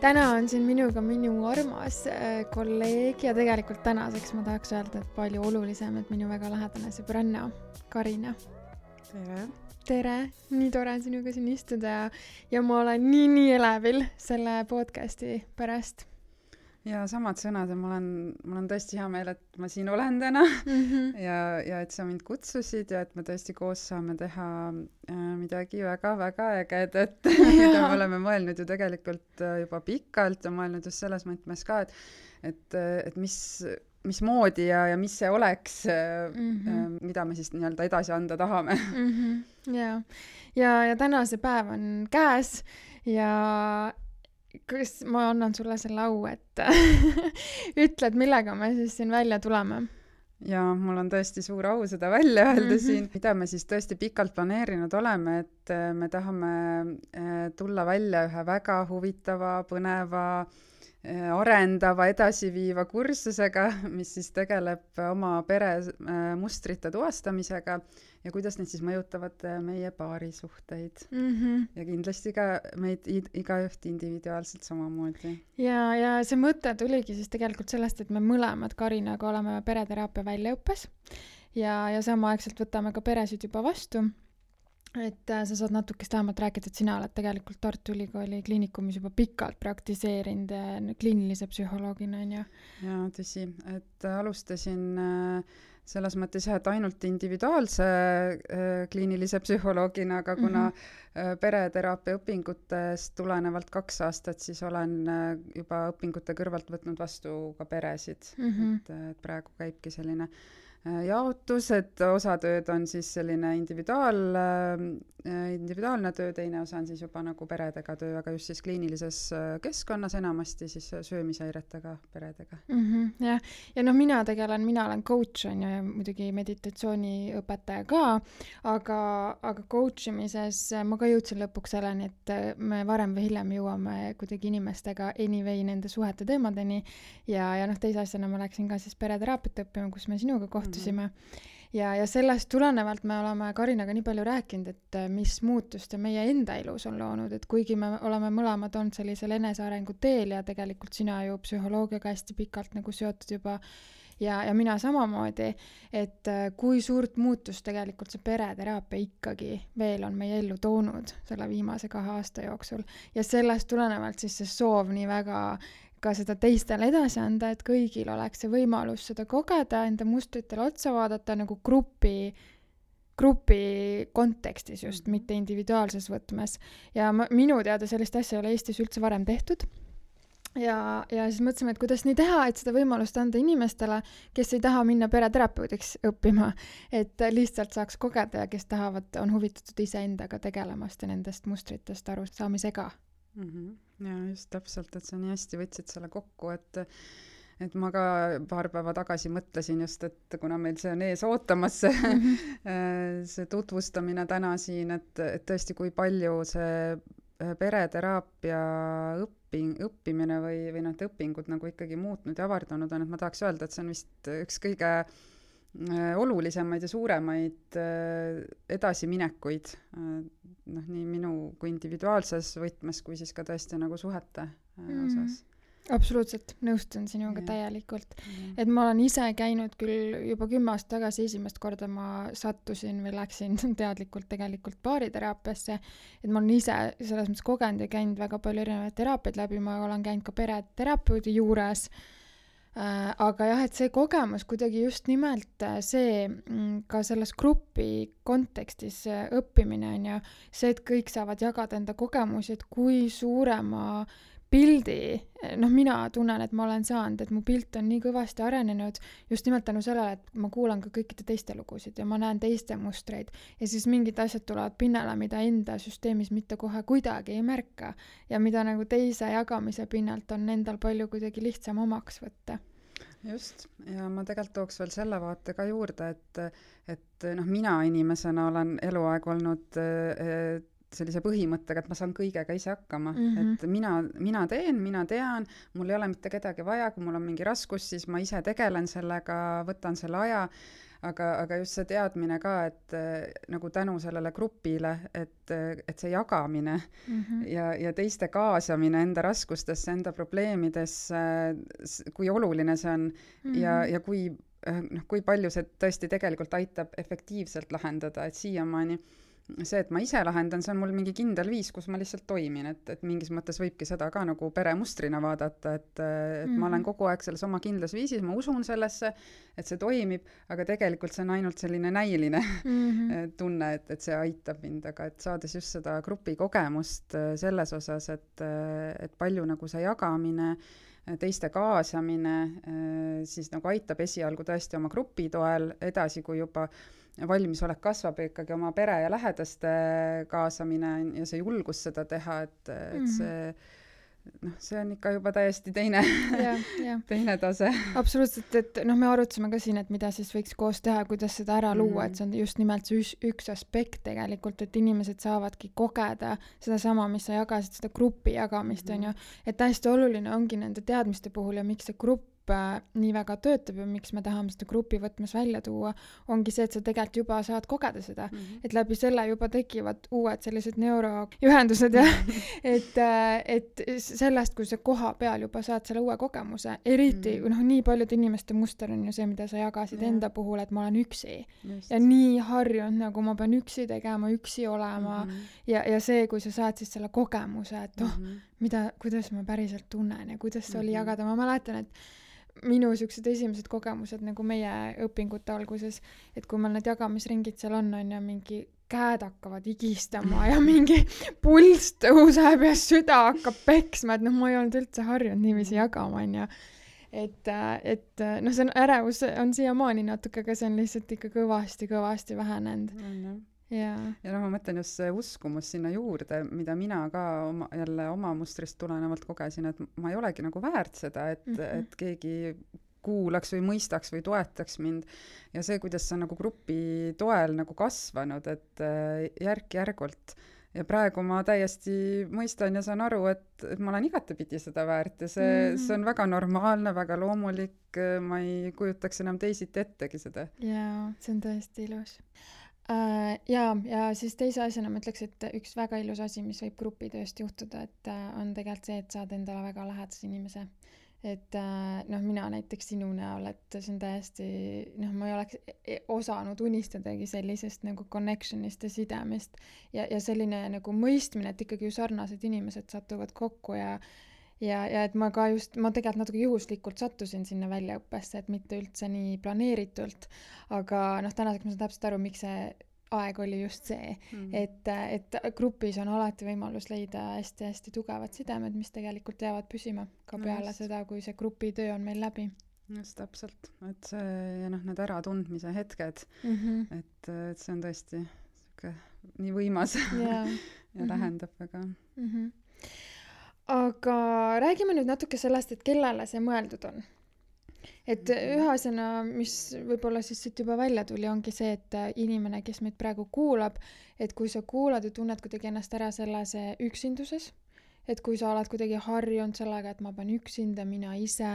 Täna on siin minuga minu armas kolleeg ja tegelikult tänaseks ma tahaks öelda, et palju olulisem, et minu väga lähedane sõbranna Karina. Tere! Tere! Nii tore on sinuga siin istuda ja ma olen nii elevil selle podcasti pärast. Ja samad sõnad ja mul on tõesti hea meel, et ma siin olen täna ja et sa mind kutsusid ja et me tõesti koos saame teha midagi väga ägedat, mida me oleme mõelnud ju tegelikult juba pikalt ja mõelnud just selles mõttes ka, et mis moodi ja mis see oleks, mida me siis nii-öelda edasi anda tahame. Ja täna see päev on käes ja kas ma annan sulle selle au, et ütled, millega me siis siin välja tuleme? Ja mul on tõesti suur au seda välja öelda siin, mida me siis tõesti pikalt planeerinud oleme, et me tahame tulla välja ühe väga huvitava, põneva, arendava, edasiviiva kursusega, mis siis tegeleb oma pere mustrite tuvastamisega ja kuidas need siis mõjutavad meie paarisuhteid. Ja kindlasti ka meid igaüht individuaalselt samamoodi. Ja see mõte tuligi siis tegelikult sellest, et me mõlemad Karinaga oleme pereteraapia väljaõppes ja samaaegselt võtame ka peresid juba vastu. Et sa saad natukest vähemalt rääkida, et sina oled tegelikult Tartu Ülikooli kliinikumis juba pikalt praktiseerinud kliinilise psühholoogina, on ju? Ja tõsi, et alustasin selles mõttes, et ainult individuaalse kliinilise psühholoogina, aga kuna pereteraapia õpingutest tulenevalt 2 aastat, siis olen juba õpingute kõrvalt võtnud vastu ka peresid. Et praegu käibki selline jaotus, et osa tööd on siis selline individuaalne töö, teine osa on siis juba nagu peredega töö, aga just siis kliinilises keskkonnas enamasti siis söömishäiretega peredega. Ja mina olen coach on ja muidugi meditatsiooniõpetaja ka, aga coach imises ma ka jõudsin lõpuks selleni, et me varem või hiljem jõuame kuidagi inimestega anyway nende suhete teemadeni ja teise asjana ma läksin ka siis pereteraapiat õppima, kus me sinuga kohtusime. Ja sellest tulenevalt me oleme Karinaga nii palju rääkinud, et mis muutust meie enda elus on loonud, et kuigi me oleme mõlemad olnud sellisel enesearengu teel ja tegelikult sina ju psühholoogiaga hästi pikalt nagu seotud juba ja mina samamoodi, et kui suurt muutust tegelikult see pereteraapia ikkagi veel on meie ellu toonud selle viimase 2 aasta jooksul ja sellest tulenevalt siis see soov nii väga ka seda teistele edasi anda, et kõigil oleks see võimalus seda kogeda, enda mustritele otsa vaadata nagu grupi kontekstis just, mitte individuaalses võtmes. Ja minu teada sellist asja ei ole Eestis üldse varem tehtud. Ja siis mõtlesime, et kuidas nii teha, et seda võimalust anda inimestele, kes ei taha minna pereterapeutiks õppima, et lihtsalt saaks kogeda ja kes tahavad, on huvitatud iseendaga tegelemast ja nendest mustritest aru saamisega. Ja just täpselt, et sa nii hästi võtsid selle kokku, et ma ka paar päeva tagasi mõtlesin just, et kuna meil see on ees ootamas see tutvustamine täna siin, et tõesti kui palju see pereteraapia õppimine või õpingud nagu ikkagi muutnud ja avardanud on, et ma tahaks öelda, et see on vist üks kõige olulisemaid ja suuremaid edasiminekuid nii minu kui individuaalses võtmes kui siis ka tõesti nagu suhete osas. Absoluutselt, nõustun sinuga täielikult. Et ma olen ise käinud küll juba 10 aastat tagasi esimest korda ma sattusin või läksin teadlikult tegelikult baariteraapiasse, et ma olen ise selles mõttes kogenud ja käinud väga palju erinevaid teraapiaid läbi, ma olen käinud ka pereterapeudi juures, aga jah, et see kogemus kuidagi just nimelt see ka selles grupi kontekstis õppimine on ja see, et kõik saavad jagada enda kogemusi, et kui suurema pildi, mina tunnen, et ma olen saanud, et mu pilt on nii kõvasti arenenud just nimelt tänu sellele, et ma kuulan ka kõikide teiste lugusid ja ma näen teiste mustreid ja siis mingid asjad tulevad pinnale, mida enda süsteemis mitte kohe kuidagi ei märka ja mida nagu teise jagamise pinnalt on endal palju kuidagi lihtsam omaks võtta. Just, ja ma tegelikult tooks veel selle vaate ka juurde, et mina inimesena olen eluaeg olnud sellise põhimõttega, et ma saan kõigega ise hakkama, Mhm. et mina teen, mina tean, mul ei ole mitte kedagi vaja, kui mul on mingi raskus, siis ma ise tegelen sellega, võtan selle aja, aga just see teadmine ka, et nagu tänu sellele grupile, et see jagamine Mhm. ja teiste kaasamine enda raskustesse, enda probleemidesse, kui oluline see on ja kui palju see tõesti tegelikult aitab efektiivselt lahendada, et siiamaani see, et ma ise lahendan, see on mul mingi kindel viis, kus ma lihtsalt toimin, et mingis mõttes võibki seda ka nagu peremustrina vaadata, et ma olen kogu aeg selles oma kindlas viisis, ma usun sellesse, et see toimib, aga tegelikult see on ainult selline näiline tunne, et see aitab mind, aga et saades just seda grupi kogemust selles osas, et palju nagu see jagamine, teiste kaasamine siis nagu aitab esialgu tõesti oma grupi toel, edasi kui juba valmisolek kasvab ikkagi oma pere ja lähedaste kaasamine ja see julgus seda teha, et see on ikka juba täiesti teine, teine tase. Absoluutselt, et me arutasime ka siin, et mida siis võiks koos teha, kuidas seda ära luua, et see on just nimelt see üks aspekt tegelikult, et inimesed saavadki kogeda sedasama, mis sa jagasid, seda grupi jagamist, on ju, et hästi oluline ongi nende teadmiste puhul ja miks see grupp nii väga töötab ja miks me tahame seda grupi võtmes välja tuua, ongi see, et sa tegelikult juba saad kogeda seda, et läbi selle juba tekivad uued sellised neuroühendused ja et sellest, kui sa koha peal juba saad selle uue kogemuse, eriti nii paljude inimeste muster on ju see, mida sa jagasid enda puhul, et ma olen üksi ja nii harjunud, nagu ma pean üksi tegema, üksi olema ja see, kui sa saad siis selle kogemuse, et kuidas ma päriselt tunnen ja kuidas see oli jagada, ma mäletan, et minu siuksed esimesed kogemused nagu meie õpingute alguses, et kui meil need jagamisringid seal on ju mingi käed hakkavad higistama ja mingi pulss tõuseb ja süda hakkab peksma, et ma ei olnud üldse harjunud niiviisi jagama, on ju. Et see ärevus on siiamaani natuke, aga see on lihtsalt ikka kõvasti vähenenud. Ja ma mõtlen just see uskumus sinna juurde, mida mina ka jälle oma mustrist tulenevalt kogesin, et ma ei olegi nagu väärt seda, et keegi kuulaks või mõistaks või toetaks mind. Ja see, kuidas see on nagu grupi toel nagu kasvanud, et järk-järgult. Ja praegu ma täiesti mõistan ja saan aru, et ma olen igatepidi seda väärt ja see on väga normaalne, väga loomulik, ma ei kujutaks enam teisiti ettegi seda. Jaa, see on tõesti ilus. Ja siis teise asjana ma ütleks, et üks väga ilus asi, mis võib grupitööst juhtuda, et on tegelikult see, et saad endale väga lähedase inimese. Et mina näiteks sinu näol, et see on täiesti, ma ei oleks osanud unistadagi sellisest nagu connectionist ja sidemist ja selline nagu mõistmine, et ikkagi ju sarnased inimesed satuvad kokku ja et ma tegelikult natuke juhuslikult sattusin sinna väljaõppesse, et mitte üldse nii planeeritult, aga tänaseks ma saan täpselt aru, miks see aeg oli just see, et grupis on alati võimalus leida hästi-hästi tugevad sidemed, mis tegelikult jäävad püsima ka peale seda, kui see grupitöö on meil läbi. Just täpselt, et see ja need äratundmise hetked, et see on tõesti nii võimas ja lähendab väga. Aga räägime nüüd natuke sellest, et kellele see mõeldud on. Et ühe asjana, mis võib-olla siis siit juba välja tuli, ongi see, et inimene, kes meid praegu kuulab, et kui sa kuulad ja tunned kuidagi ennast ära sellise üksinduses, et kui sa oled kuidagi harjunud sellega, et ma pean üksinda, mina ise,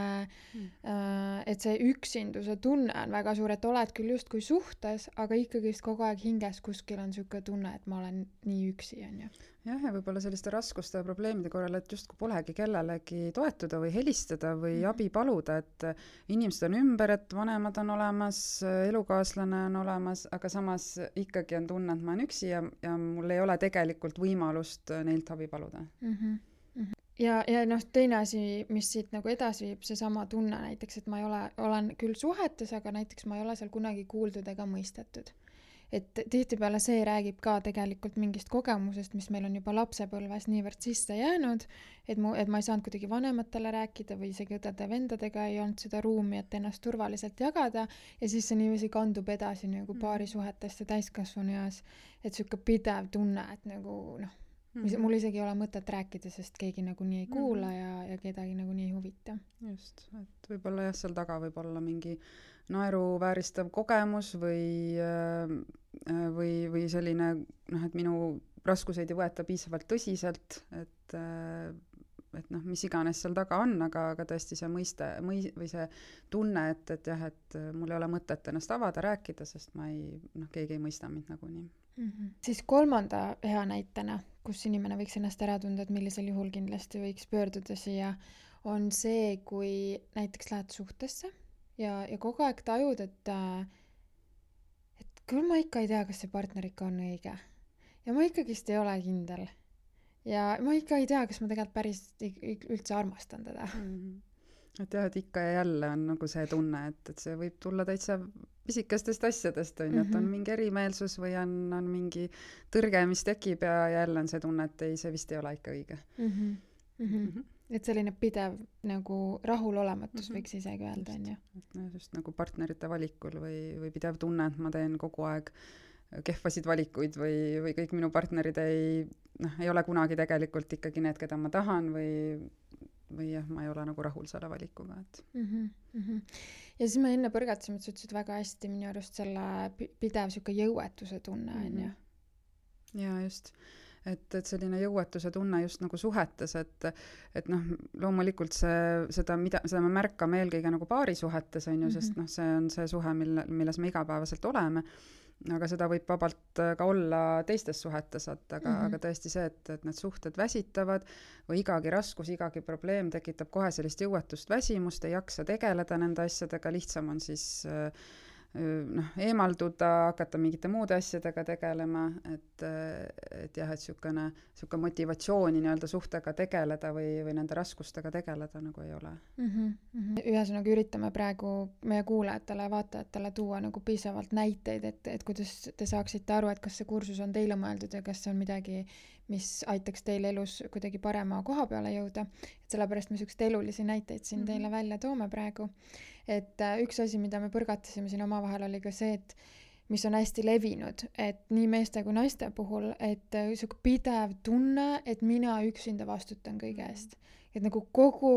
et see üksinduse tunne on väga suur, et oled küll justkui suhtes, aga ikkagi kogu aeg hinges kuskil on siuke tunne, et ma olen nii üksi, on ju. Jah, ja võib-olla selliste raskuste ja probleemide korral, et justkui polegi kellelegi toetuda või helistada või abi paluda, et inimesed on ümber, et vanemad on olemas, elukaaslane on olemas, aga samas ikkagi on tunne, et ma olen üksi ja mul ei ole tegelikult võimalust neilt abi paluda. Ja teine asi, mis siit nagu edasi viib, seesama tunne näiteks, et ma olen küll suhetes, aga näiteks ma ei ole seal kunagi kuuldud ega mõistetud. Et tihtipeale see räägib ka tegelikult mingist kogemusest, mis meil on juba lapsepõlves niivõrd sisse jäänud, et ma ei saanud kuidagi vanematele rääkida või isegi õdede-vendadega ei olnud seda ruumi, et ennast turvaliselt jagada ja siis see niiviisi kandub edasi nagu paarisuhetest ja täiskasvanueas, et siuke pidev tunne, et nagu mul isegi ei ole mõtet rääkida, sest keegi nagu nii ei kuula ja kedagi nagu nii ei huvita. Just, et võib-olla seal taga võib olla mingi naeruvääristav kogemus või selline, et minu raskuseid ei võeta piisavalt tõsiselt, et noh, mis iganes seal taga on, aga tõesti see või see tunne, et jah, et mul ei ole mõtet ennast avada, rääkida, sest keegi ei mõista mind nagunii. Siis kolmanda hea näitena, kus inimene võiks ennast ära tunda, et millisel juhul kindlasti võiks pöörduda siia, on see, kui näiteks lähed suhtesse ja kogu aeg tajud, et küll ma ikka ei tea, kas see partner ikka on õige. Ja ma ikkagist ei ole kindel. Ja ma ikka ei tea, kas ma tegelikult päris üldse armastan teda. Et jah, et ikka ja jälle on nagu see tunne, et see võib tulla täitsa pisikestest asjadest, et on mingi erimeelsus või on mingi tõrge, mis tekib ja jälle on see tunne, et ei, see vist ei ole ikka õige. Et selline pidev nagu rahulolematus võiks isegi öelda, on ju. Just nagu partnerite valikul või pidev tunne, et ma teen kogu aeg kehvasid valikuid või kõik minu partnerid ei ole kunagi tegelikult ikkagi need, keda ma tahan või jah, ma ei ole nagu rahul selle valikuga. Ja siis me enne põrgatasime, et sa ütlesid väga hästi minu arust selle pidev siuke jõuetuse tunne, on ju. Ja just. Et selline jõuetuse tunne just nagu suhetes, et noh, loomulikult seda me märkame eelkõige nagu paarisuhetes, on ju, sest noh, see on see suhe, milles me igapäevaselt oleme, aga seda võib vabalt ka olla teistes suhetes, aga tõesti see, et need suhted väsitavad või igagi raskus, igagi probleem tekitab kohe sellist jõuetust, väsimust, ei jaksa tegeleda nende asjadega, lihtsam on siis eemalduda, hakata mingite muude asjadega tegelema, et jah, et siuke motivatsiooni nii-öelda suhtega tegeleda või nende raskustega tegeleda nagu ei ole. Ühesõnaga üritame praegu meie kuulajatele ja vaatajatele tuua nagu piisavalt näiteid, et kuidas te saaksite aru, et kas see kursus on teile mõeldud ja kas see on midagi, mis aitaks teil elus kuidagi parema koha peale jõuda. Et sellepärast me sellised elulisi näiteid siin teile välja toome praegu. Et üks asi, mida me põrgatasime siin omavahel, oli ka see, et mis on hästi levinud, et nii meeste kui naiste puhul, et siuke pidev tunne, et mina üksinda vastutan kõige eest. Et nagu kogu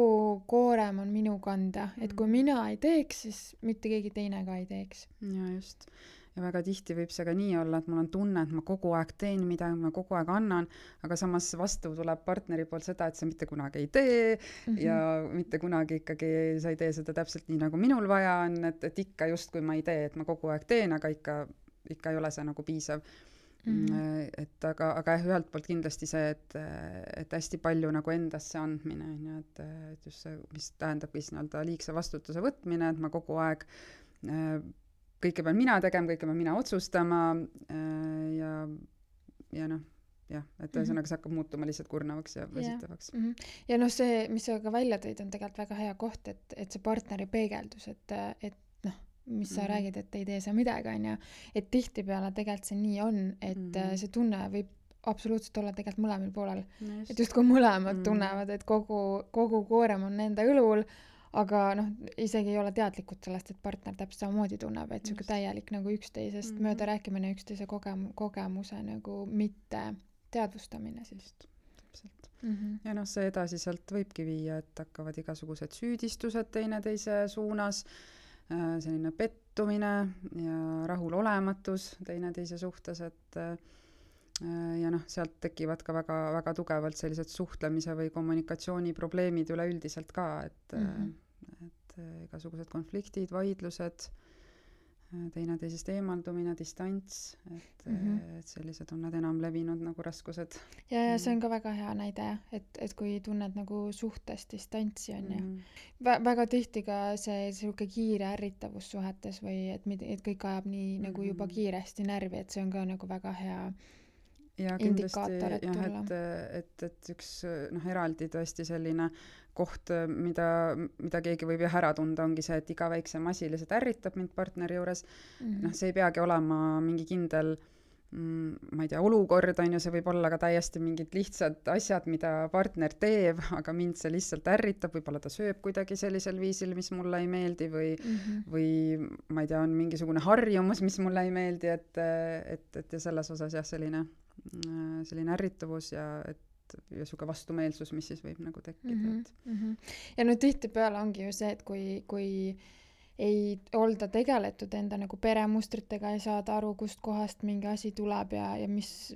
koorem on minu kanda, et kui mina ei teeks, siis mitte keegi teine ka ei teeks. Ja just. Ja väga tihti võib see ka nii olla, et mul on tunne, et ma kogu aeg teen midagi, ma kogu aeg annan, aga samas vastu tuleb partneri poolt seda, et sa mitte kunagi ei tee ja mitte kunagi ikkagi sa ei tee seda täpselt nii, nagu minul vaja on, et ikka just kui ma ei tee, et ma kogu aeg teen, aga ikka ei ole see nagu piisav. Et aga ühelt poolt kindlasti see, et hästi palju nagu endasse andmine, et just see, mis tähendab siis nii-öelda liigse vastutuse võtmine, et ma kogu aeg kõike pean mina tegema, kõike pean mina otsustama ja noh, jah, et ühesõnaga see hakkab muutuma lihtsalt kurnavaks ja väsitavaks. Ja noh, see, mis sa ka välja tõid, on tegelikult väga hea koht, et see partneri peegeldus, et noh, mis sa räägid, et ei tee sa midagi, on ju, et tihtipeale tegelikult see nii on, et see tunne võib absoluutselt olla tegelikult mõlemil poolel. Et just kui mõlemad tunnevad, et kogu koorem on nende õlul, aga noh, isegi ei ole teadlikud sellest, et partner täpselt samamoodi tunneb, et siuke täielik nagu üksteisest mööda rääkimine, üksteise kogemuse nagu mitte teadvustamine siis. Täpselt. Ja noh, see edasi sealt võibki viia, et hakkavad igasugused süüdistused teineteise suunas, selline pettumine ja rahulolematus teineteise suhtes, ja noh, sealt tekivad ka väga, väga tugevalt sellised suhtlemise või kommunikatsiooni probleemid üleüldiselt ka, et igasugused konfliktid, vaidlused, teineteisest eemaldumine, distants, et sellised on need enam levinud nagu raskused. Ja see on ka väga hea näide, et kui tunned nagu suhtes distantsi on ju. Väga tihti ka see siuke kiire ärritavus suhetes või et kõik ajab nii nagu juba kiiresti närvi, et see on ka nagu väga hea ja indikaator, et tulla. Et üks eraldi tõesti selline koht, mida keegi võib ära tunda, ongi see, et iga väiksem asi lihtsalt ärritab mind partneri juures. See ei peagi olema mingi kindel, ma ei tea, olukord, on ju, see võib olla ka täiesti mingid lihtsad asjad, mida partner teeb, aga mind see lihtsalt ärritab, võib-olla ta sööb kuidagi sellisel viisil, mis mulle ei meeldi või ma ei tea, on mingisugune harjumus, mis mulle ei meeldi, et ja selles osas jah, selline ärritavus ja siuke vastumeelsus, mis siis võib nagu tekkida. Ja no tihtipeale ongi ju see, et kui ei olda tegeletud enda nagu peremustritega, ei saada aru, kust kohast mingi asi tuleb ja mis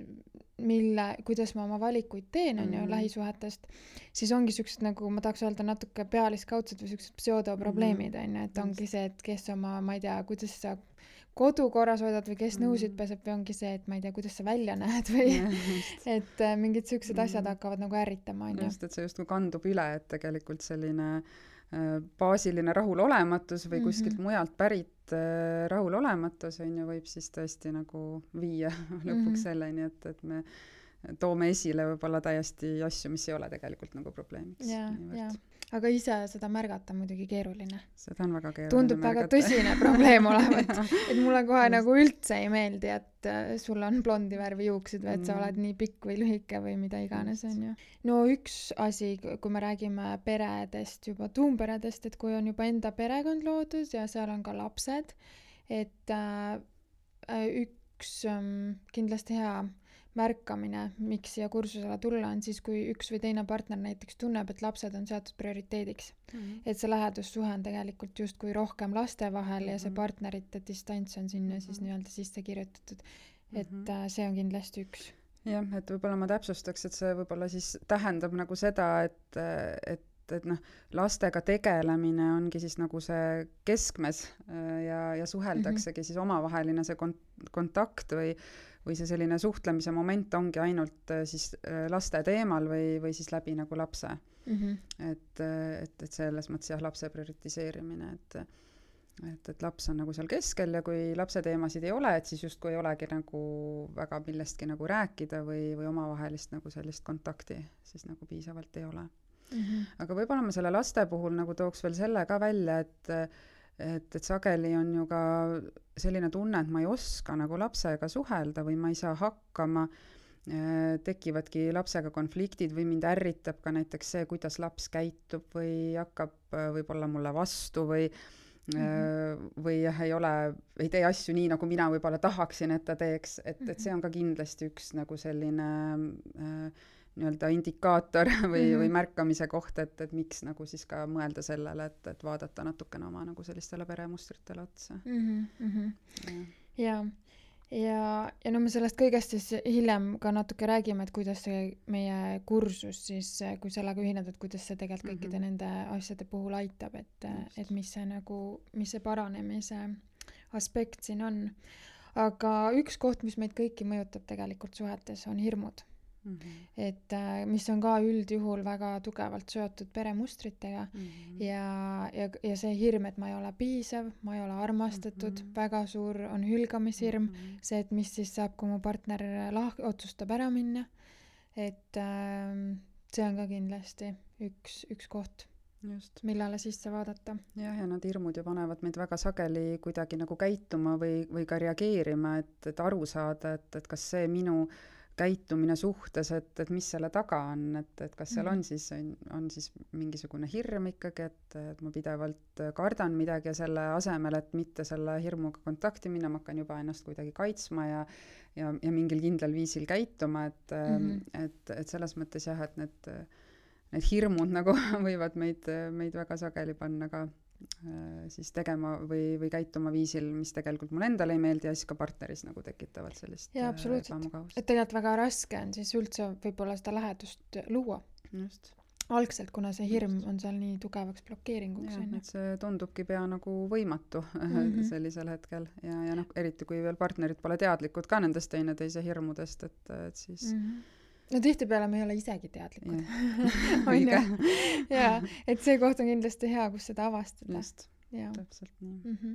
kuidas ma oma valikuid teen, on ju, lähisuhetest, siis ongi siuksed nagu, ma tahaks öelda natuke pealiskaudsed või siuksed pseudoprobleemid, on ju, et ongi see, et kes oma, ma ei tea, kuidas sa kodu korras hoidad või kes nõusid peseb või ongi see, et ma ei tea, kuidas sa välja näed või et mingid siuksed asjad hakkavad nagu ärritama, on ju. Just, et see justkui kandub üle, et tegelikult selline baasiline rahulolematus või kuskilt mujalt pärit rahulolematus, on ju, võib siis tõesti nagu viia lõpuks selleni, et me toome esile võib-olla täiesti asju, mis ei ole tegelikult nagu probleemiks. Ja. Aga ise seda märgata muidugi keeruline. Seda on väga keeruline tundub märgata. Väga tõsine probleem olevat, et mulle kohe nagu üldse ei meeldi, et sul on blondi värvi juuksed või et sa oled nii pikk või lühike või mida iganes, on ju. No üks asi, kui me räägime peredest, juba tuumperedest, et kui on juba enda perekond loodud ja seal on ka lapsed, et üks kindlasti hea märkamine, miks siia kursusele tulla, on siis, kui üks või teine partner näiteks tunneb, et lapsed on seatud prioriteediks. Et see lähedussuhe on tegelikult justkui rohkem laste vahel ja see partnerite distants on sinna siis nii-öelda sisse kirjutatud. Et see on kindlasti üks. Jah, et võib-olla ma täpsustaks, et see võib-olla siis tähendab nagu seda, et noh, lastega tegelemine ongi siis nagu see keskmes ja suheldaksegi siis omavaheline see kontakt või see selline suhtlemise moment ongi ainult siis laste teemal või siis läbi nagu lapse. Et selles mõttes jah, lapse prioritiseerimine, et laps on nagu seal keskel ja kui lapse teemasid ei ole, et siis justkui ei olegi nagu väga millestki nagu rääkida või omavahelist nagu sellist kontakti siis nagu piisavalt ei ole. Aga võib-olla ma selle laste puhul nagu tooks veel selle ka välja, et sageli on ju ka selline tunne, et ma ei oska nagu lapsega suhelda või ma ei saa hakkama, tekivadki lapsega konfliktid või mind ärritab ka näiteks see, kuidas laps käitub või hakkab võib-olla mulle vastu või jah, ei tee asju nii, nagu mina võib-olla tahaksin, et ta teeks, et see on ka kindlasti üks nagu selline nii-öelda indikaator või märkamise koht, et miks nagu siis ka mõelda sellele, et vaadata natukene oma nagu sellistele peremustritele otsa. Ja no me sellest kõigest siis hiljem ka natuke räägime, et kuidas see meie kursus siis, kui sellega ühined, et kuidas see tegelikult kõikide nende asjade puhul aitab, et mis see paranemise aspekt siin on. Aga üks koht, mis meid kõiki mõjutab tegelikult suhetes, on hirmud. Et mis on ka üldjuhul väga tugevalt seotud peremustritega ja see hirm, et ma ei ole piisav, ma ei ole armastatud, väga suur on hülgamishirm, see, et mis siis saab, kui mu partner otsustab ära minna, et see on ka kindlasti üks koht. Just. Millele sisse vaadata. Ja nad hirmud ju panevad meid väga sageli kuidagi nagu käituma või ka reageerima, et aru saada, et kas see minu käitumine suhtes, et mis selle taga on, et kas seal on siis mingisugune hirm ikkagi, et ma pidevalt kardan midagi ja selle asemel, et mitte selle hirmuga kontakti minna, ma hakkan juba ennast kuidagi kaitsma ja mingil kindlal viisil käituma, et selles mõttes jah, et need hirmud nagu võivad meid väga sageli panna ka siis tegema või käituma viisil, mis tegelikult mulle endale ei meeldi ja siis ka partneris nagu tekitavad sellist ebamugavust. Et tegelikult väga raske on siis üldse võib-olla seda lähedust luua. Just. Algselt, kuna see hirm on seal nii tugevaks blokeeringuks. Ja, et see tundubki pea nagu võimatu sellisel hetkel ja noh, eriti kui veel partnerid pole teadlikud ka nendest teineteise hirmudest, et siis no tihtipeale me ei ole isegi teadlikud. Ja, et see koht on kindlasti hea, kus seda avastada. Just, täpselt nii.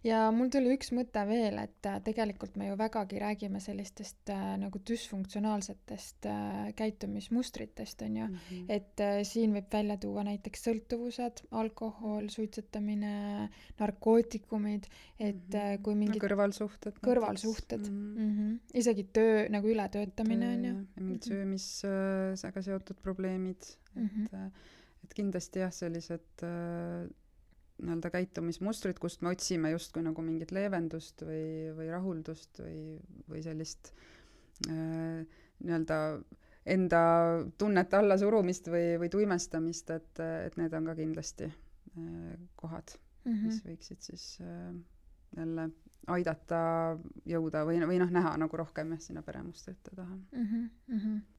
Ja mul tuli üks mõte veel, et tegelikult me ju vägagi räägime sellistest nagu düsfunktsionaalsetest käitumismustritest, on ju. Et siin võib välja tuua näiteks sõltuvused, alkohol, suitsetamine, narkootikumid, et kui mingid kõrvalsuhted. Isegi töö, nagu ületöötamine, on ju. Ja mingid söömisega seotud probleemid. Et kindlasti jah, sellised nii-öelda käitumismustrid, kust me otsime justkui nagu mingit leevendust või rahuldust või sellist nii-öelda enda tunnete allasurumist või tuimestamist, et need on ka kindlasti kohad, mis võiksid siis jälle aidata jõuda või noh, näha nagu rohkem sinna peremustrite taha.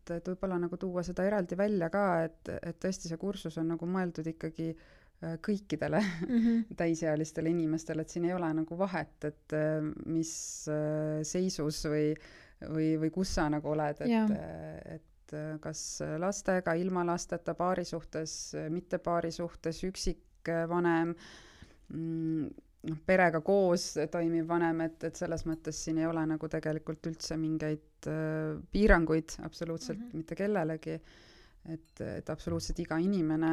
Et võib-olla nagu tuua seda eraldi välja ka, et tõesti see kursus on nagu mõeldud ikkagi kõikidele täisealistele inimestele, et siin ei ole nagu vahet, et mis seisus või kus sa nagu oled, et kas lastega, ilma lasteta, paari suhtes, mitte paari suhtes, üksikvanem, perega koos toimiv vanem, et selles mõttes siin ei ole nagu tegelikult üldse mingeid piiranguid absoluutselt mitte kellelegi, et absoluutselt iga inimene,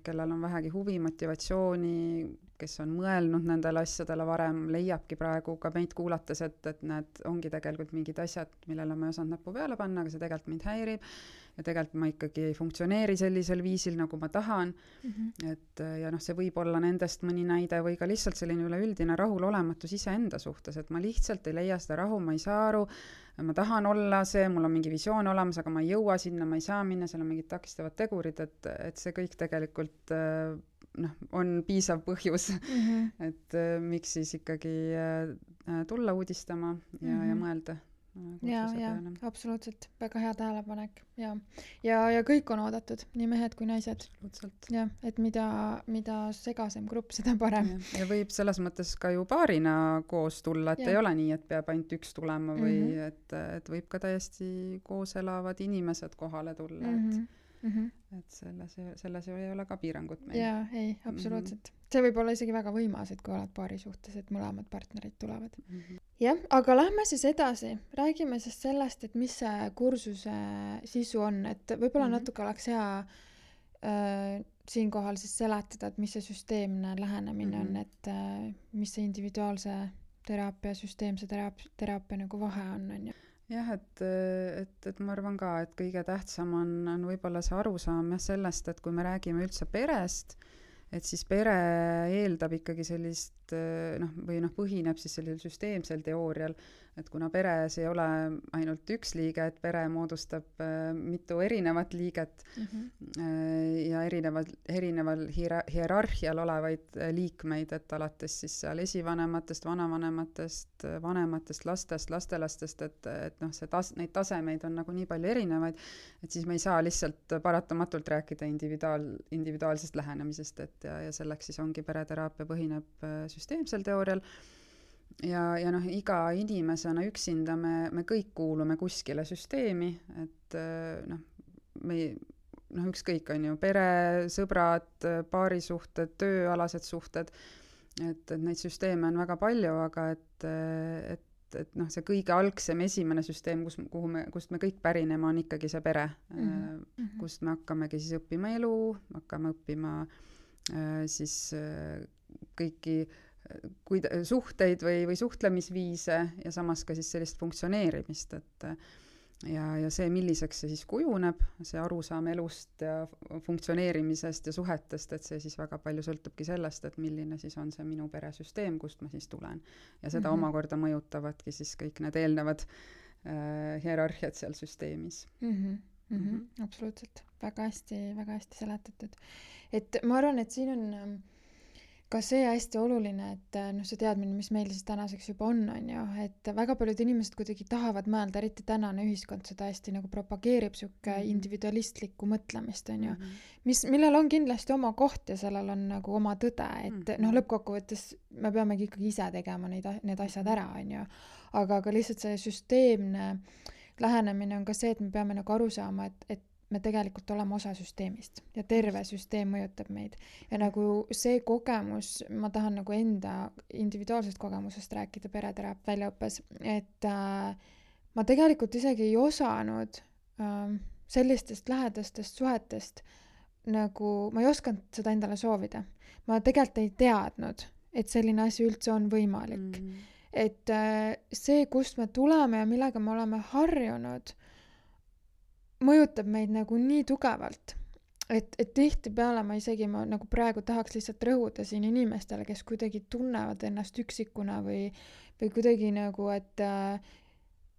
kellel on vähegi huvi, motivatsiooni, kes on mõelnud nendele asjadele varem, leiabki praegu ka meid kuulates, et need ongi tegelikult mingid asjad, millele ma ei osanud näppu peale panna, aga see tegelikult mind häirib ja tegelikult ma ikkagi ei funktsioneeri sellisel viisil, nagu ma tahan. Et ja noh, see võib olla nendest mõni näide või ka lihtsalt selline üleüldine rahulolematus iseenda suhtes, et ma lihtsalt ei leia seda rahu, ma ei saa aru, ma tahan olla see, mul on mingi visioon olemas, aga ma ei jõua sinna, ma ei saa minna, seal on mingid takistavad tegurid, et see kõik tegelikult on piisav põhjus, et miks siis ikkagi tulla uudistama ja mõelda. Ja, absoluutselt. Väga hea tähelepanek. Ja kõik on oodatud, nii mehed kui naised. Absoluutselt. Ja, et mida segasem grupp, seda parem. Ja võib selles mõttes ka ju paarina koos tulla, et ei ole nii, et peab ainult üks tulema või et võib ka täiesti koos elavad inimesed kohale tulla, et selles ei ole ka piirangut meil. Jaa, ei, absoluutselt. See võib olla isegi väga võimas, et kui oled paari suhtes, et mõlemad partnerid tulevad. Jah, aga lähme siis edasi. Räägime siis sellest, et mis see kursuse sisu on, et võib-olla natuke oleks hea siinkohal siis seletada, et mis see süsteemne lähenemine on, et mis see individuaalse teraapia, süsteemse teraapia nagu vahe on ju. Jah, et ma arvan ka, et kõige tähtsam on võib-olla see arusaam sellest, et kui me räägime üldse perest, et siis pere eeldab ikkagi sellist, põhineb siis sellisel süsteemsel teoorial, et kuna peres ei ole ainult üks liige, et pere moodustab mitu erinevat liiget ja erineval hierarhial olevaid liikmeid, et alates siis seal esivanematest, vanavanematest, vanematest, lastest, lastelastest, et neid tasemeid on nagu nii palju erinevaid, et siis me ei saa lihtsalt paratamatult rääkida individuaalsest lähenemisest, ja selleks siis ongi pereteraapia põhineb süsteemsel teoorial. Ja iga inimesena üksinda me kõik kuulume kuskile süsteemi, et ükskõik on ju pere, sõbrad, paarisuhted, tööalased suhted, et neid süsteeme on väga palju, aga et see kõige algsem esimene süsteem, kust me kõik pärinema, on ikkagi see pere, kust me hakkamegi siis õppima elu, hakkame õppima siis kõiki suhteid või suhtlemisviise ja samas ka siis sellist funktsioneerimist, et ja see, milliseks see siis kujuneb, see arusaam elust ja funktsioneerimisest ja suhetest, et see siis väga palju sõltubki sellest, et milline siis on see minu peresüsteem, kust ma siis tulen. Ja seda omakorda mõjutavadki siis kõik need eelnevad hierarhiad seal süsteemis. Absoluutselt. Väga hästi seletatud. Et ma arvan, et siin on ka see hästi oluline, et see teadmine, mis meil siis tänaseks juba on ju, et väga paljud inimesed kuidagi tahavad mõelda, eriti tänane ühiskond seda hästi nagu propageerib siuke individualistlikku mõtlemist on ju, millel on kindlasti oma koht ja sellel on nagu oma tõde, et lõppkokkuvõttes me peamegi ikkagi ise tegema need asjad ära on ju, aga lihtsalt see süsteemne lähenemine on ka see, et me peame nagu aru saama, et me tegelikult oleme osa süsteemist ja terve süsteem mõjutab meid. Ja nagu see kogemus, ma tahan nagu enda individuaalsest kogemusest rääkida pereteraapia väljaõppes, et ma tegelikult isegi ei osanud sellistest lähedastest suhetest, nagu ma ei osanud seda endale soovida. Ma tegelikult ei teadnud, et selline asi üldse on võimalik. Et see, kust me tuleme ja millega me oleme harjunud, mõjutab meid nagu nii tugevalt, et tihtipeale ma nagu praegu tahaks lihtsalt rõhuda siin inimestele, kes kuidagi tunnevad ennast üksikuna või kuidagi nagu, et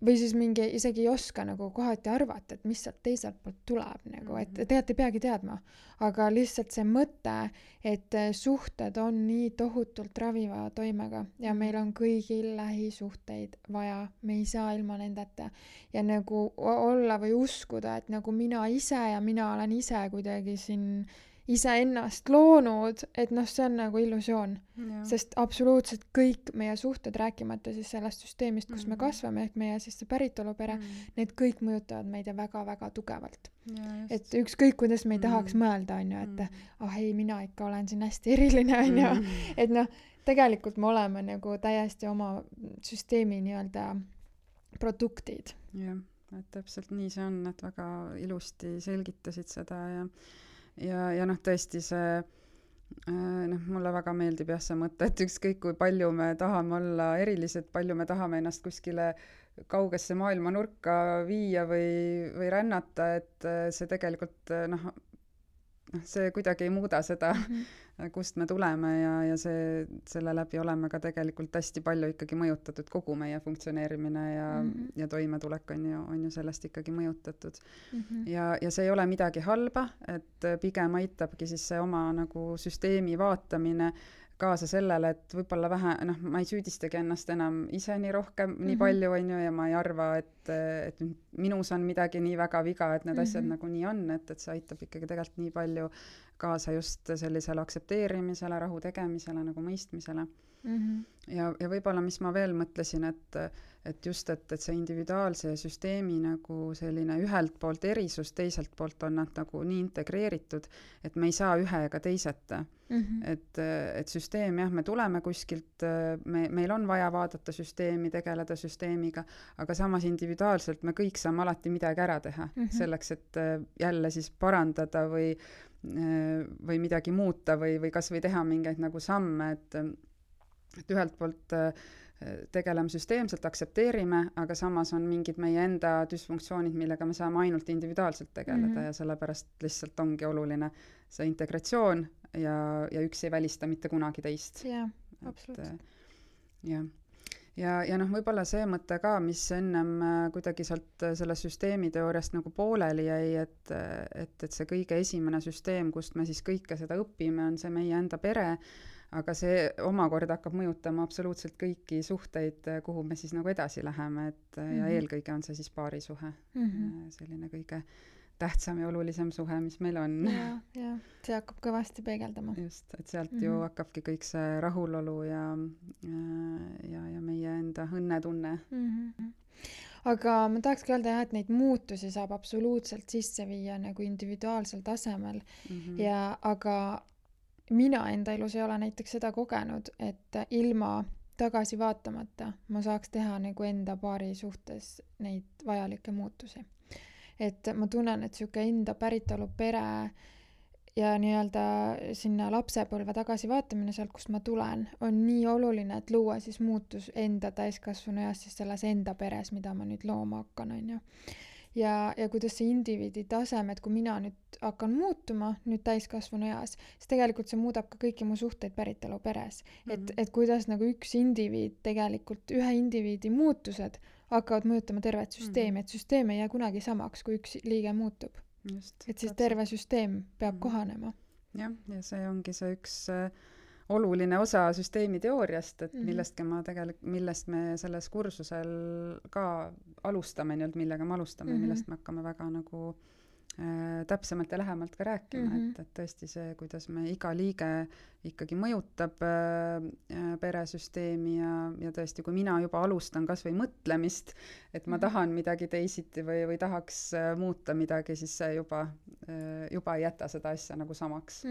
või siis mingi isegi ei oska nagu kohati arvata, et mis sealt teiselt poolt tuleb nagu, et tegelikult ei peagi teadma, aga lihtsalt see mõte, et suhted on nii tohutult raviva toimega ja meil on kõigil lähisuhteid vaja, me ei saa ilma nendeta ja nagu olla või uskuda, et nagu mina ise ja mina olen ise kuidagi siin iseennast loonud, et noh, see on nagu illusioon, sest absoluutselt kõik meie suhted, rääkimata siis sellest süsteemist, kus me kasvame, ehk meie siis see päritolupere, need kõik mõjutavad meid ja väga-väga tugevalt. Et ükskõik, kuidas me ei tahaks mõelda, on ju, et ei, mina ikka olen siin hästi eriline, on ju, et noh, tegelikult me oleme nagu täiesti oma süsteemi nii-öelda produktid. Jah, et täpselt nii see on, et väga ilusti selgitasid seda ja noh, tõesti see mulle väga meeldib jah see mõte, et ükskõik kui palju me tahame olla erilised, palju me tahame ennast kuskile kaugesse maailma nurka viia või rännata, et see tegelikult see kuidagi ei muuda seda, kust me tuleme ja selle läbi oleme ka tegelikult hästi palju ikkagi mõjutatud, kogu meie funktsioneerimine ja toimetulek on ju sellest ikkagi mõjutatud. Ja see ei ole midagi halba, et pigem aitabki siis see oma nagu süsteemi vaatamine kaasa sellele, et võib-olla vähe, ma ei süüdistagi ennast enam ise nii rohkem, nii palju on ju, ja ma ei arva, et minus on midagi nii väga viga, et need asjad nagu nii on, et see aitab ikkagi tegelikult nii palju kaasa just sellisele aksepteerimisele, rahu tegemisele, nagu mõistmisele. Ja võib-olla, mis ma veel mõtlesin, et just, et see individuaalse süsteemi nagu selline ühelt poolt erisus, teiselt poolt on nad nagu nii integreeritud, et me ei saa ühe ega teiseta. Et süsteem, jah, me tuleme kuskilt, meil on vaja vaadata süsteemi, tegeleda süsteemiga, aga samas individuaalselt me kõik saame alati midagi ära teha, selleks, et jälle siis parandada või midagi muuta või kas või teha mingeid nagu samme, et ühelt poolt tegeleme süsteemselt, aktsepteerime, aga samas on mingid meie enda dysfunktsioonid, millega me saame ainult individuaalselt tegeleda ja sellepärast lihtsalt ongi oluline see integratsioon ja üks ei välista mitte kunagi teist. Jah, absoluutselt. Ja võib-olla see mõte ka, mis ennem kuidagi sealt selle süsteemi teooriast nagu pooleli jäi, et see kõige esimene süsteem, kust me siis kõike seda õpime, on see meie enda pere, aga see omakorda hakkab mõjutama absoluutselt kõiki suhteid, kuhu me siis nagu edasi läheme, ja eelkõige on see siis paarisuhe. Selline kõige tähtsam ja olulisem suhe, mis meil on. Ja, see hakkab kõvasti peegeldama. Just, et sealt ju hakkabki kõik see rahulolu ja meie enda õnnetunne. Aga ma tahakski öelda, et neid muutusi saab absoluutselt sisse viia nagu individuaalsel tasemel. Aga mina enda elus ei ole näiteks seda kogenud, et ilma tagasi vaatamata ma saaks teha nagu enda paari suhtes neid vajalikke muutusi. Et ma tunnen, et siuke enda päritolu pere ja nii-öelda sinna lapsepõlve tagasi vaatamine sealt, kust ma tulen, on nii oluline, et luua siis muutus enda täiskasvanu eas siis selles enda peres, mida ma nüüd looma hakkan, on ju. Ja kuidas see indiviidi tasem, et kui mina nüüd hakkan muutuma nüüd täiskasvanu eas, siis tegelikult see muudab ka kõiki mu suhteid päritolu peres. Et kuidas nagu üks indiviid tegelikult, ühe indiviidi muutused hakkavad mõjutama tervet süsteemi, et süsteem ei jää kunagi samaks, kui üks liige muutub. Just, et siis terve süsteem peab kohanema. Ja see ongi see üks oluline osa süsteemi teooriast, et millest me selles kursusel ka alustame, millega me alustame, millest me hakkame väga nagu täpsemalt ja lähemalt ka rääkima, et tõesti see, kuidas me iga liige ikkagi mõjutab peresüsteemi ja tõesti, kui mina juba alustan kas või mõtlemist, et ma tahan midagi teisiti või tahaks muuta midagi, siis see juba ei jäta seda asja nagu samaks.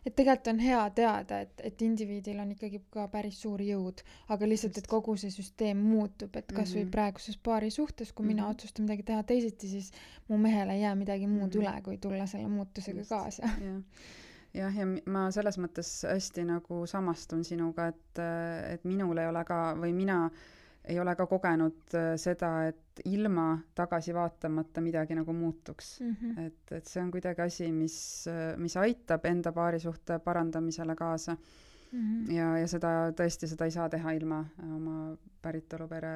Et tegelikult on hea teada, et indiviidil on ikkagi ka päris suur jõud, aga lihtsalt, et kogu see süsteem muutub, et kas või praeguses paari suhtes, kui mina otsustan midagi teha teisiti, siis mu mehele ei jää midagi muud üle, kui tulla selle muutusega kaasa. Ja ma selles mõttes hästi nagu samastun sinuga, et minul ei ole ka, või mina ei ole ka kogenud seda, et ilma tagasi vaatamata midagi nagu muutuks. Et see on kuidagi asi, mis aitab enda paarisuhte parandamisele kaasa. Ja seda tõesti, seda ei saa teha ilma oma päritolupere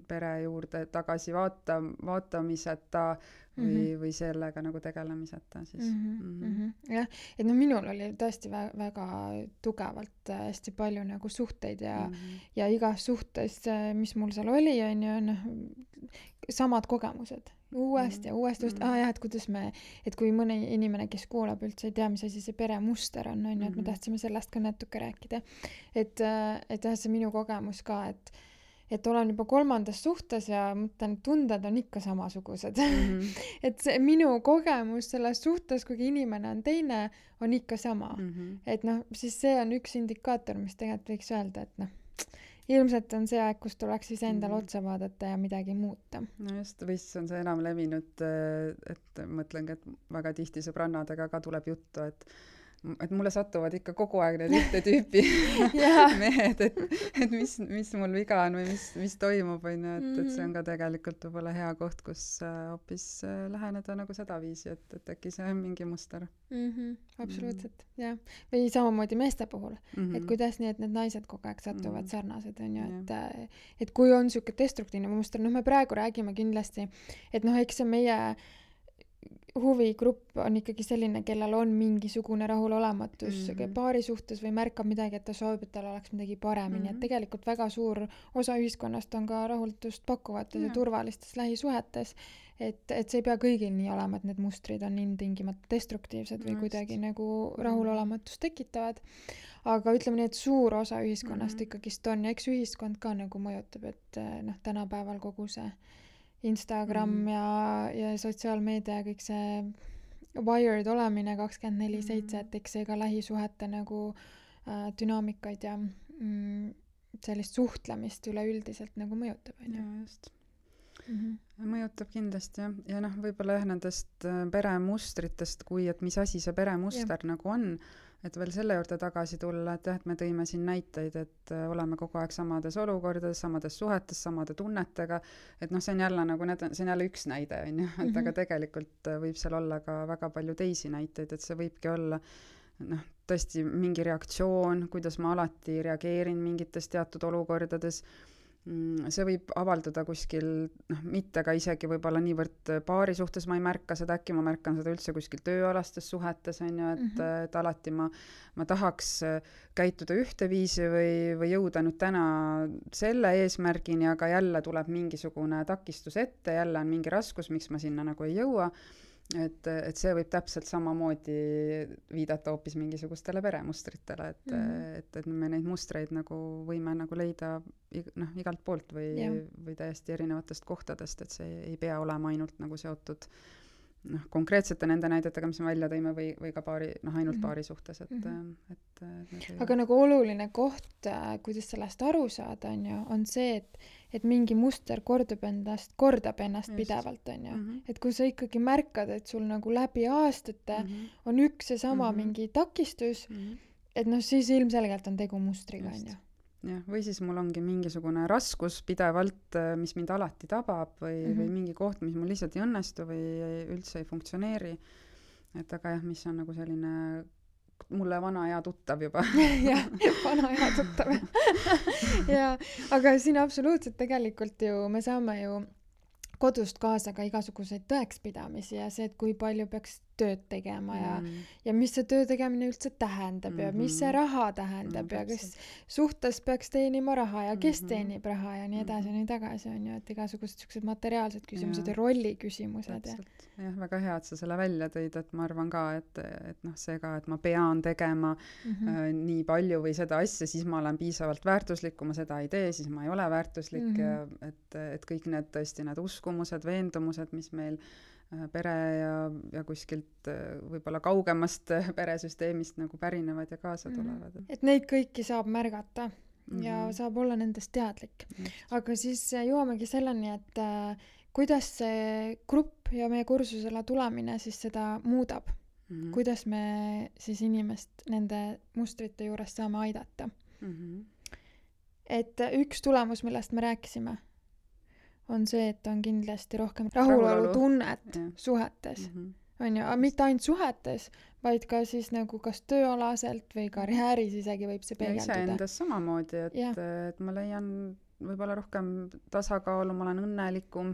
pere juurde tagasi vaatamiseta või sellega nagu tegelemiseta siis. Jah, et no minul oli tõesti väga tugevalt hästi palju nagu suhteid ja igas suhtes, mis mul seal oli, on ju, noh, samad kogemused. Uuesti, et kuidas et kui mõni inimene, kes kuulab üldse ei tea, mis asi see peremuster on, et me tahtsime sellest ka natuke rääkida. Et see minu kogemus ka, et olen juba 3. suhtes ja mõtlen, tunded on ikka samasugused. Et see minu kogemus selles suhtes, kuigi inimene on teine, on ikka sama. Et noh, siis see on üks indikaator, mis tegelikult võiks öelda, et noh, ilmselt on see aeg, kus tuleks siis endale otsa vaadata ja midagi muuta. No just, vist on see enam levinud, et mõtlengi, et väga tihti sõbrannadega ka tuleb juttu, et mulle satuvad ikka kogu aeg need ühte tüüpi mehed, et mis mul viga on või mis toimub, et see on ka tegelikult võib-olla hea koht, kus hoopis läheneda nagu seda viisi, et äkki see on mingi muster. Absoluutselt, jah. Või samamoodi meeste puhul, et kuidas nii, et need naised kogu aeg satuvad sarnased, on ju, et kui on siuke destruktiivne muster, noh, me praegu räägime kindlasti, et noh, eks see meie huvigrupp on ikkagi selline, kellel on mingisugune rahulolematus paari suhtes või märkab midagi, et ta soovib, et tal oleks midagi paremini, et tegelikult väga suur osa ühiskonnast on ka rahuldust pakkuvates ja turvalistes lähisuhetes, et see ei pea kõigil nii olema, et need mustrid on ilmtingimata destruktiivsed või kuidagi nagu rahulolematust tekitavad, aga ütleme nii, et suur osa ühiskonnast ikkagist on ja eks ühiskond ka nagu mõjutab, et noh, tänapäeval kogu see Instagram ja sotsiaalmeedia ja kõik see wired olemine 24/7, et eks see ka lähisuhete nagu dünaamikaid ja sellist suhtlemist üleüldiselt nagu mõjutab, on ju. Ja just. Mõjutab kindlasti, jah. Ja noh, võib-olla nendest peremustritest, et mis asi see peremuster nagu on, et veel selle juurde tagasi tulla, et jah, et me tõime siin näiteid, et oleme kogu aeg samades olukordades, samades suhetes, samade tunnetega, et noh, see on jälle nagu, see on jälle üks näide, on ju, et aga tegelikult võib seal olla ka väga palju teisi näiteid, et see võibki olla noh, tõesti mingi reaktsioon, kuidas ma alati reageerin mingites teatud olukordades. See võib avalduda kuskil, noh, mitte ka isegi võib-olla niivõrd paari suhtes ma ei märka seda, äkki ma märkan seda üldse kuskil tööalastes suhetes, on ju, et alati ma tahaks käituda ühteviisi või jõuda nüüd täna selle eesmärgini, aga jälle tuleb mingisugune takistus ette, jälle on mingi raskus, miks ma sinna nagu ei jõua. Et see võib täpselt samamoodi viidata hoopis mingisugustele peremustritele, et me neid mustreid nagu võime nagu leida igalt poolt või täiesti erinevatest kohtadest, et see ei pea olema ainult nagu seotud konkreetsete nende näidetega, mis me välja tõime või ka ainult paari suhtes, aga nagu oluline koht, kuidas sellest aru saada, on ju, on see, et mingi muster kordab ennast just pidevalt, on ju. Et kui sa ikkagi märkad, et sul nagu läbi aastate on üks ja sama mingi takistus, et noh, siis ilmselgelt on tegu mustriga, on ju. Ja, või siis mul ongi mingisugune raskus pidevalt, mis mind alati tabab või mingi koht, mis mul lihtsalt ei õnnestu või üldse ei funktsioneeri. Et aga jah, mis on nagu selline mulle vana hea tuttav juba. Jah, vana hea tuttav. Ja, aga siin absoluutselt tegelikult ju me saame ju kodust kaasa ka igasuguseid tõekspidamisi ja see, et kui palju peaks tööd tegema ja mis see töö tegemine üldse tähendab ja mis see raha tähendab ja kes suhtes peaks teenima raha ja kes teenib raha ja nii edasi ja nii tagasi, on ju, et igasugused sellised materiaalsed küsimused ja rolli küsimused. Jah, väga hea, et sa selle välja tõid, et ma arvan ka, et noh, see ka, et ma pean tegema nii palju või seda asja, siis ma olen piisavalt väärtuslik, kui ma seda ei tee, siis ma ei ole väärtuslik ja et kõik need tõesti need uskumused, veendumused, mis meil pere ja kuskilt võib-olla kaugemast peresüsteemist nagu pärinevad ja kaasa tulevad. Et neid kõiki saab märgata ja saab olla nendest teadlik. Aga siis jõuamegi selleni, et kuidas see grupp ja meie kursusele tulemine siis seda muudab. Kuidas me siis inimest nende mustrite juures saame aidata. Et üks tulemus, millest me rääkisime, on see, et on kindlasti rohkem rahulolu tunnet suhetes. On ju, mitte ainult suhetes, vaid ka siis nagu kas tööalaselt või karjääris isegi võib see peegelduda. Ja ise endas samamoodi, et ma leian võib-olla rohkem tasakaalu, ma olen õnnelikum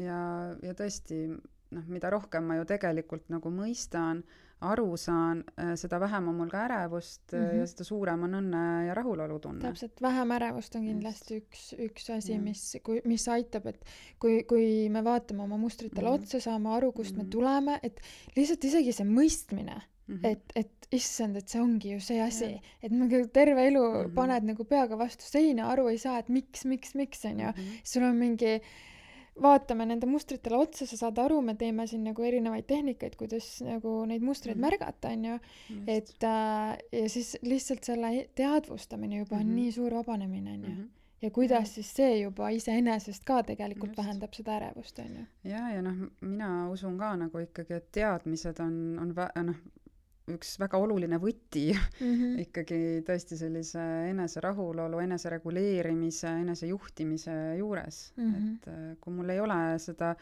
ja tõesti, noh, mida rohkem ma ju tegelikult nagu mõistan, aru saan, seda vähem on mul ka ärevust ja seda suurem on õnne ja rahulolu tunne. Täpselt, vähem ärevust on kindlasti üks asi, mis aitab, et kui me vaatame oma mustritele otsa, saame aru, kust me tuleme, et lihtsalt isegi see mõistmine, et issand, et see ongi ju see asi, et nagu terve elu paned nagu peaga vastu seina, aru ei saa, et miks on ju. Sul on mingi vaatame nende mustritele otsa, sa saad aru, me teeme siin nagu erinevaid tehnikaid, kuidas nagu neid mustreid märgata, on ju. Et ja siis lihtsalt selle teadvustamine juba on nii suur vabanemine, on ju. Ja kuidas siis see juba iseenesest ka tegelikult vähendab seda ärevust, on ju. Ja noh, mina usun ka nagu ikkagi, et teadmised on üks väga oluline võti ikkagi tõesti sellise enese rahulolu, enese reguleerimise, enese juhtimise juures. Et kui mul ei ole seda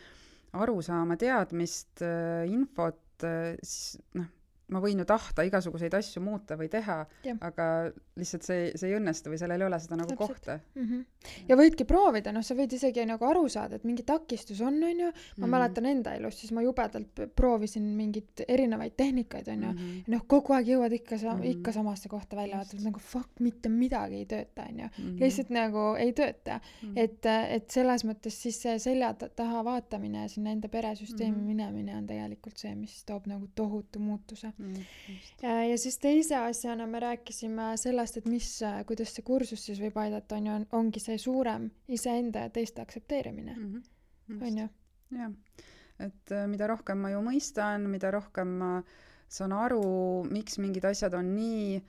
arusaama, teadmist, infot, siis ma võin ju tahta igasuguseid asju muuta või teha, aga lihtsalt see ei õnnestu või sellel ei ole seda nagu kohta. Ja võidki proovida, sa võid isegi nagu aru saada, et mingi takistus on ju. Ma mäletan enda elust, siis ma jubedalt proovisin mingit erinevaid tehnikaid, on ju. Kogu aeg jõuad ikka samasse kohta välja, vaatad nagu fuck, mitte midagi ei tööta, on ju. Lihtsalt nagu ei tööta. Et selles mõttes siis see selja taha vaatamine ja sinna enda peresüsteemi minemine on tegelikult see, mis toob nagu tohutu muutuse. Ja siis teise asjana me rääkisime sellest, et kuidas see kursus siis võib aidata, ongi see suurem iseenda ja teiste aktsepteerimine. On ju? Jah, et mida rohkem ma ju mõistan, mida rohkem ma saan aru, miks mingid asjad on nii,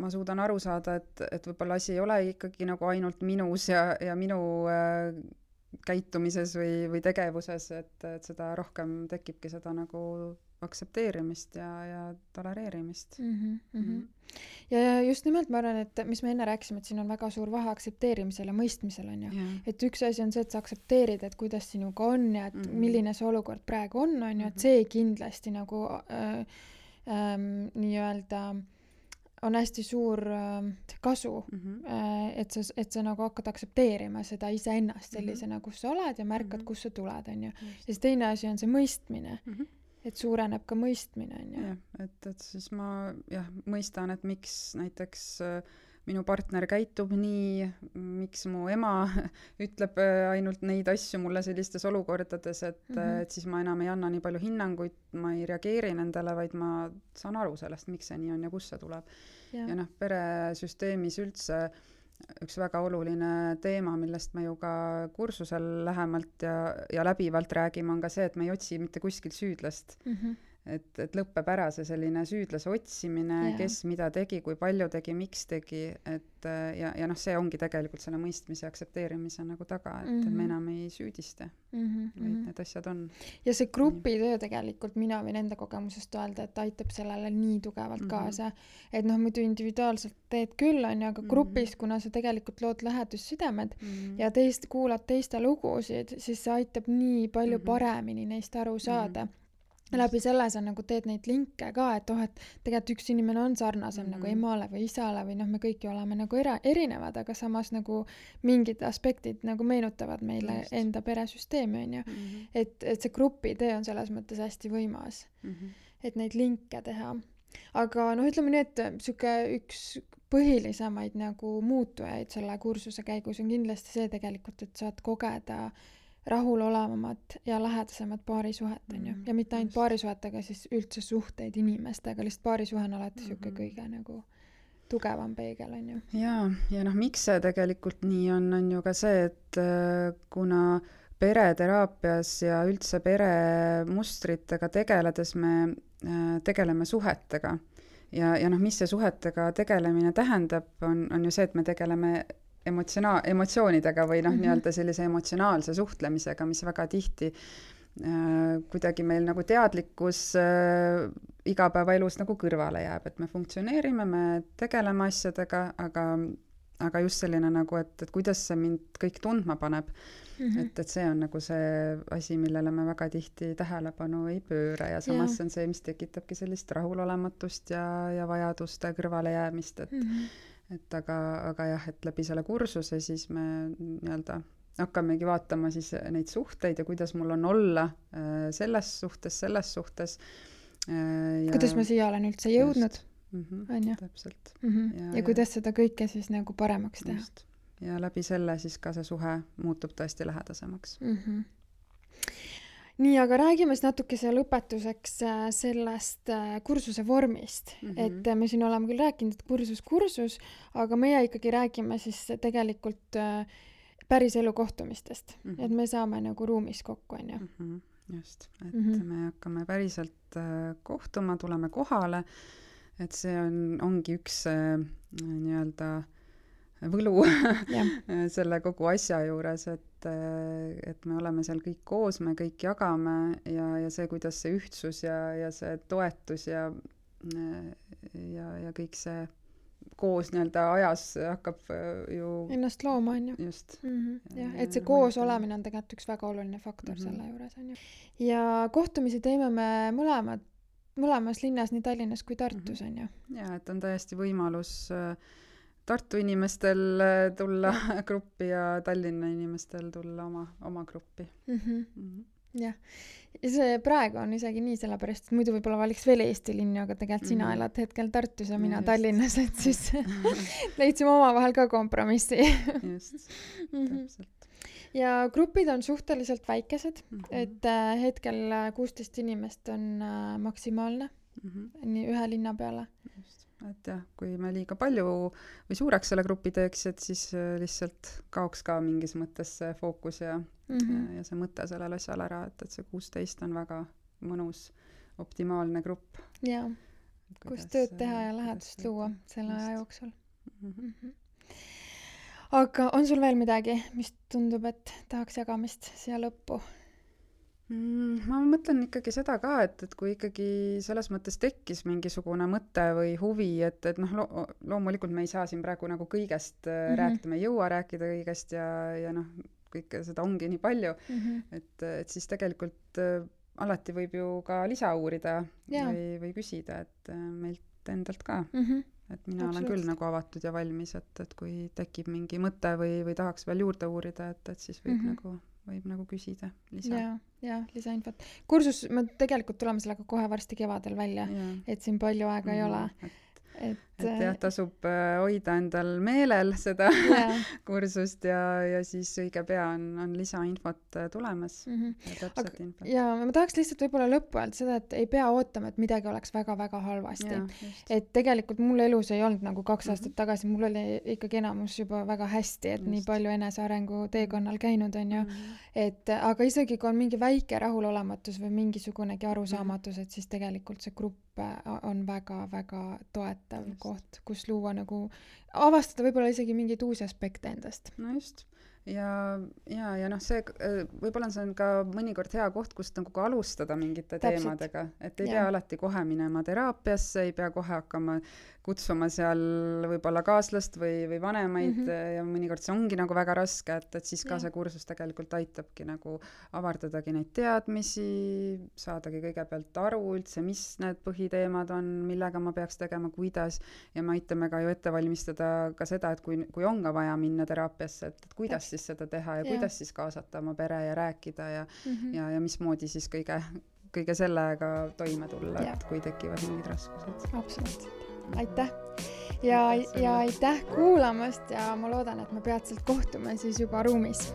ma suudan aru saada, et võib-olla asi ei ole ikkagi nagu ainult minus ja minu käitumises või tegevuses, et seda rohkem tekibki seda nagu aktsepteerimist ja tolereerimist. Ja just nimelt ma arvan, et mis me enne rääkisime, et siin on väga suur vahe aktsepteerimisel ja mõistmisel, on ju. Et üks asi on see, et sa aktsepteerid, et kuidas sinuga on ja et milline see olukord praegu on ju, et see kindlasti nagu nii-öelda on hästi suur kasu, et sa nagu hakkad aktsepteerima seda iseennast sellisena, kus sa oled ja märkad, kus sa tuled, on ju. Ja siis teine asi on see mõistmine. Et suureneb ka mõistmine, on ju. Et siis ma mõistan, et miks näiteks minu partner käitub nii, miks mu ema ütleb ainult neid asju mulle sellistes olukordades, et siis ma enam ei anna nii palju hinnanguid, ma ei reageeri nendele, vaid ma saan aru sellest, miks see nii on ja kus see tuleb. Ja peresüsteemis üldse üks väga oluline teema, millest me ju ka kursusel lähemalt ja läbivalt räägime, on ka see, et me ei otsi mitte kuskil süüdlast. Et lõppeb ära see selline süüdlase otsimine, kes mida tegi, kui palju tegi, miks tegi, ja see ongi tegelikult selle mõistmise ja aktsepteerimise nagu taga, et me enam ei süüdista, vaid need asjad on. Ja see grupitöö tegelikult mina võin enda kogemusest öelda, et aitab sellele nii tugevalt kaasa, et muidu individuaalselt teed küll, on ju, aga grupis, kuna sa tegelikult lood lähedussidemed ja kuulad teiste lugusid, siis see aitab nii palju paremini neist aru saada. Läbi selle sa nagu teed neid linke ka, et et tegelikult üks inimene on sarnasem nagu emale või isale või me kõik oleme nagu erinevad, aga samas nagu mingid aspektid nagu meenutavad meile enda peresüsteemi, on ju. Et see grupitöö on selles mõttes hästi võimas, et neid linke teha. Aga ütleme nii, et siuke üks põhilisemaid nagu muutujaid selle kursuse käigus on kindlasti see tegelikult, et saad kogeda rahulolevamat ja lähedasemat paarisuhet, on ju. Ja mitte ainult paarisuhetega, siis üldse suhteid inimestega, lihtsalt paarisuhe on alati siuke kõige nagu tugevam peegel, on ju. Ja miks see tegelikult nii on ju ka see, et kuna pereteraapias ja üldse peremustritega tegeledes me tegeleme suhetega ja mis see suhetega tegelemine tähendab, on ju see, et me tegeleme emotsioonidega või nii-öelda sellise emotsionaalse suhtlemisega, mis väga tihti kuidagi meil nagu teadlikkus igapäevaelus nagu kõrvale jääb, et me funktsioneerime, me tegeleme asjadega, aga just selline nagu, et kuidas see mind kõik tundma paneb. Et see on nagu see asi, millele me väga tihti tähelepanu ei pööra ja samas see on see, mis tekitabki sellist rahulolematust ja vajaduste kõrvale jäämist, et aga jah, et läbi selle kursuse siis me nii-öelda hakkamegi vaatama siis neid suhteid ja kuidas mul on olla selles suhtes. Kuidas ma siia olen üldse jõudnud, on ju? Täpselt. Ja kuidas seda kõike siis nagu paremaks teha. Just. Ja läbi selle siis ka see suhe muutub tõesti lähedasemaks. Nii, aga räägime siis natukese lõpetuseks sellest kursuse vormist. Et me siin oleme küll rääkinud, et kursus, aga meie ikkagi räägime siis tegelikult päris elu kohtumistest. Et me saame nagu ruumis kokku, on ju. Just, et me hakkame päriselt kohtuma, tuleme kohale, et see ongi üks nii-öelda võlu selle kogu asja juures, et me oleme seal kõik koos, me kõik jagame ja see, kuidas see ühtsus ja see toetus ja kõik see koos nii-öelda ajas hakkab ju ennast looma, on ju. Just. Jah, et see koos olemine on tegelikult üks väga oluline faktor selle juures, on ju. Ja kohtumisi teeme me mõlemas linnas, nii Tallinnas kui Tartus, on ju. Ja, et on täiesti võimalus Tartu inimestel tulla gruppi ja Tallinna inimestel tulla oma gruppi. Jah. Ja see praegu on isegi nii, sellepärast, et muidu võib-olla valiks veel Eesti linnu, aga tegelikult sina elad hetkel Tartus ja mina Tallinnas, et siis leidsime omavahel ka kompromissi. Just, täpselt. Ja grupid on suhteliselt väikesed, et hetkel 16 inimest on maksimaalne nii ühe linna peale. Just. Et jah, kui me liiga palju või suureks selle grupi teeks, et siis lihtsalt kaoks ka mingis mõttes see fookus ja see mõte sellel asjal ära, et see 16 on väga mõnus, optimaalne grupp. Jaa, kus tööd teha ja lähedust luua selle aja jooksul. Aga on sul veel midagi, mis tundub, et tahaks jagamist siia lõppu? Ma mõtlen ikkagi seda ka, et kui ikkagi selles mõttes tekkis mingisugune mõte või huvi, et loomulikult me ei saa siin praegu nagu kõigest rääkida, me ei jõua rääkida kõigest ja kõike seda ongi nii palju, et siis tegelikult alati võib ju ka lisa uurida või küsida, et meilt endalt ka. Et mina olen küll nagu avatud ja valmis, et kui tekib mingi mõte või tahaks veel juurde uurida, et siis võib nagu küsida lisa. Ja lisainfot. Kursus, me tegelikult tuleme sellega kohe varsti kevadel välja, et siin palju aega ei ole. Et jah, tasub hoida endal meelel seda kursust ja siis õige pea on lisainfot tulemas ja täpselt infot. Ja ma tahaks lihtsalt võib-olla lõppu öelda seda, et ei pea ootama, et midagi oleks väga-väga halvasti. Et tegelikult mul elus ei olnud nagu 2 aastat tagasi, mul oli ikkagi enamus juba väga hästi, et nii palju enesearengu teekonnal käinud on ju. Aga isegi kui on mingi väike rahulolematus või mingisugunegi arusaamatus, et siis tegelikult see grupp on väga-väga toetav koht, kus luua nagu, avastada võib-olla isegi mingeid uusi aspekte endast. No just. Ja see võib-olla see on ka mõnikord hea koht, kust nagu ka alustada mingite teemadega, et ei pea alati kohe minema teraapiasse, ei pea kohe hakkama kutsuma seal võib-olla kaaslast või vanemaid ja mõnikord see ongi nagu väga raske, et siis ka see kursus tegelikult aitabki nagu avardadagi neid teadmisi, saadagi kõigepealt aru üldse, mis need põhiteemad on, millega ma peaks tegema, kuidas, ja me aitame ka ju ette valmistada ka seda, et kui on ka vaja minna teraapiasse, et kuidas siis seda teha ja kuidas siis kaasata oma pere ja rääkida ja mismoodi siis kõige sellega toime tulla, et kui tekivad mingid raskused. Absoluutselt. Aitäh! Ja aitäh kuulamast ja ma loodan, et me peatselt kohtume siis juba ruumis.